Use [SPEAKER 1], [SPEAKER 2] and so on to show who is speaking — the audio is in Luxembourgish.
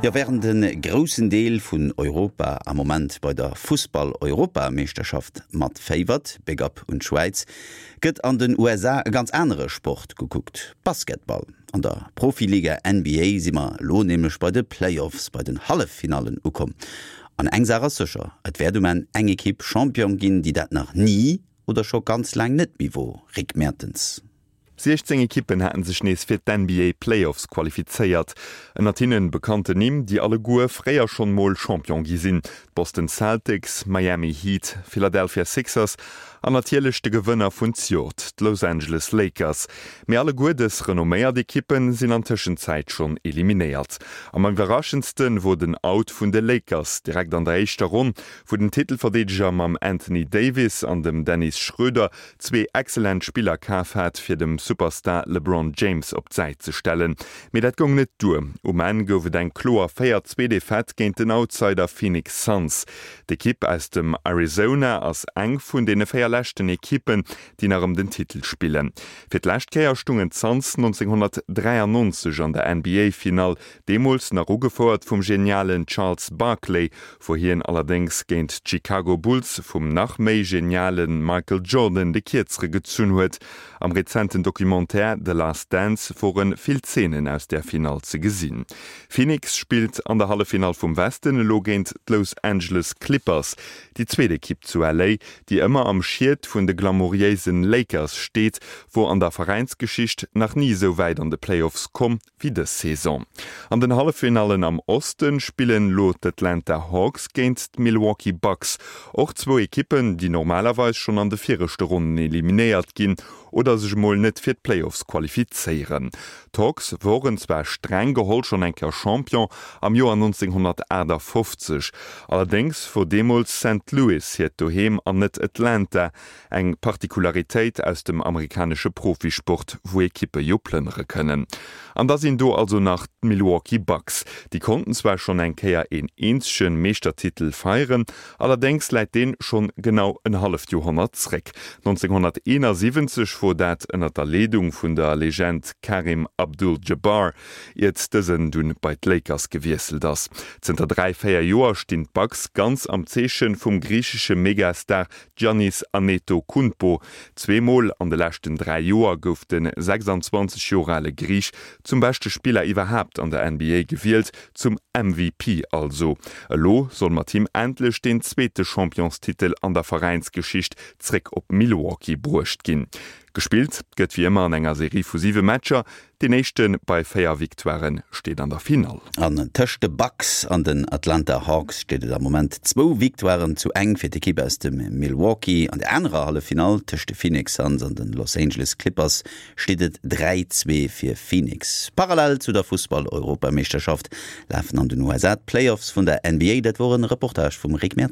[SPEAKER 1] Jo, wärend e groussen Deel vun Europa am Moment bei der Fussball-Europameeschterschaft matféiwert, Big Up un d'Schwäiz, gëtt an den USA e ganz anere Sport gekuckt, Basketball. An der Profiliga NBA si mer elo nämlech bei de Playoffs, bei den Halleffinallen ukomm. An eng Saach ass sécher, et wäert um Enn eng Ekipp Champion ginn, déi dat nach ni oder scho ganz laang net méi wor, Rick Mertens.
[SPEAKER 2] 16 Ekippen haten sech nees fir d'NBA Playoffs qualifizéiert. Ënnert hinnen bekannten Nimm, déi alleguer fréier schonn mol Champion gi sinn, d'Boston Celtics, Miami Heat, Philadelphia Sixers an natierlech de Gewënner vun zjort, d'Los Angeles Lakers. Mee alleguer dës renomméiert Ekippen sinn an Tëschenzäit schonn eliminéiert. Am iwwerraschendste wor den Out vun de Lakers direkt an der éischter Ronn, wou den Titelverdeedeger mam Anthony Davis an dem Dennis Schröder zwee excellent Spiller kaf hat, fir dem Superstar LeBron James op d'Säit ze stellen. Mee dat goung net duer. Um Enn gouf et eng kloer 4, 2 Defaite géint den Outsider Phoenix Suns. D'Ekipp aus dem Arizona ass eng vun deene 4 leschten Ekippen, déi nach ëm den Titel spillen. Fir d'lescht Kéier stungen d'Suns 1993 an der NBA-Finall, deemools nach ugefouert vum genialen Charles Barkley, wou hien allerdéngs géint d'Chicago Bulls vum nach méi geniale Michael Jordan de Kierzere gezunn huet. Am rezenten Documentaire The Last Dance wore vill Zeenen aus där Finall ze gesinn. Phoenix spillt an der Halleffinall vum Westen elo géint d'Los Angeles Clippers, déi zweet Ekipp zu LA, déi ëmmer am Schiet vun de glamouriéisen Lakers steet, wor an der Veräinsgeschicht nach ni esou wäit an de Playoffs komm. wéi dës Saison. An den Halleffinallen am Oste spillen elo d'Atlanta Hawks géint d'Milwaukee Bucks. Och zwou Ekippen, déi normalerweis schonn an de viregte Ronnen eliminéiert ginn oder sech emol net fir d'Playoffs qualifizéieren. D'Hawks woren zwar streng geholl schonn eng Kéier Champion am Joer 1958, allerdéngs wor deemools Saint Louis hiert Doheem an net Atlanta, Eng Partikularitéit aus dem amerikanesche Profisport, wou Ekippe jo plënnere kënnen. An da sinn do also nach d'Milwaukee Bucks. Déi konnten zwar schonn eng Kéier een eenzege Meeschtertitel feieren, allerdéngs läit deen schonn genau en halleft Joerhonnert zréck. 1971 wor dat ënnert der Leedung vun der Legend Kareem Abdul-Jabbar, iert dësen dunn bei d'Lakers gewiesselt ass. Zënter 3, 4 Joer stinn d'Bucks ganz am Zeeche vum griichesche Megastar Giannis Antetokounmpo. Zweemol an de leschten 3 Joer gouf de 26 Joer ale Griich zum beschte Spiller iwwerhaapt an der NBA gewielt, zum MVP also. Elo soll mat him endlech deen zweete Championstitel an der Veräinsgeschicht zréck op Milwaukee bruecht ginn. Gespillt gëtt wéi ëmmer an enger Serie vu 7 Matcher, Deen éischte bei 4 Victoiren steet an der Finall.
[SPEAKER 1] An tëscht de Bucks an den Atlanta Hawks steet et am Moment zwou Victoiren zu eng fir d'Ekipp aus dem Milwaukee. An der anerer Halleffinall tëscht de Phoenix Suns an den Los Angeles Clippers steet et 3, 2 fir Phoenix. Parallel zu der Fussball-Europameeschterschaft lafen an den USA d'Playoffs vun der NBA. Dat wor en Reportage vum Rick Mertens.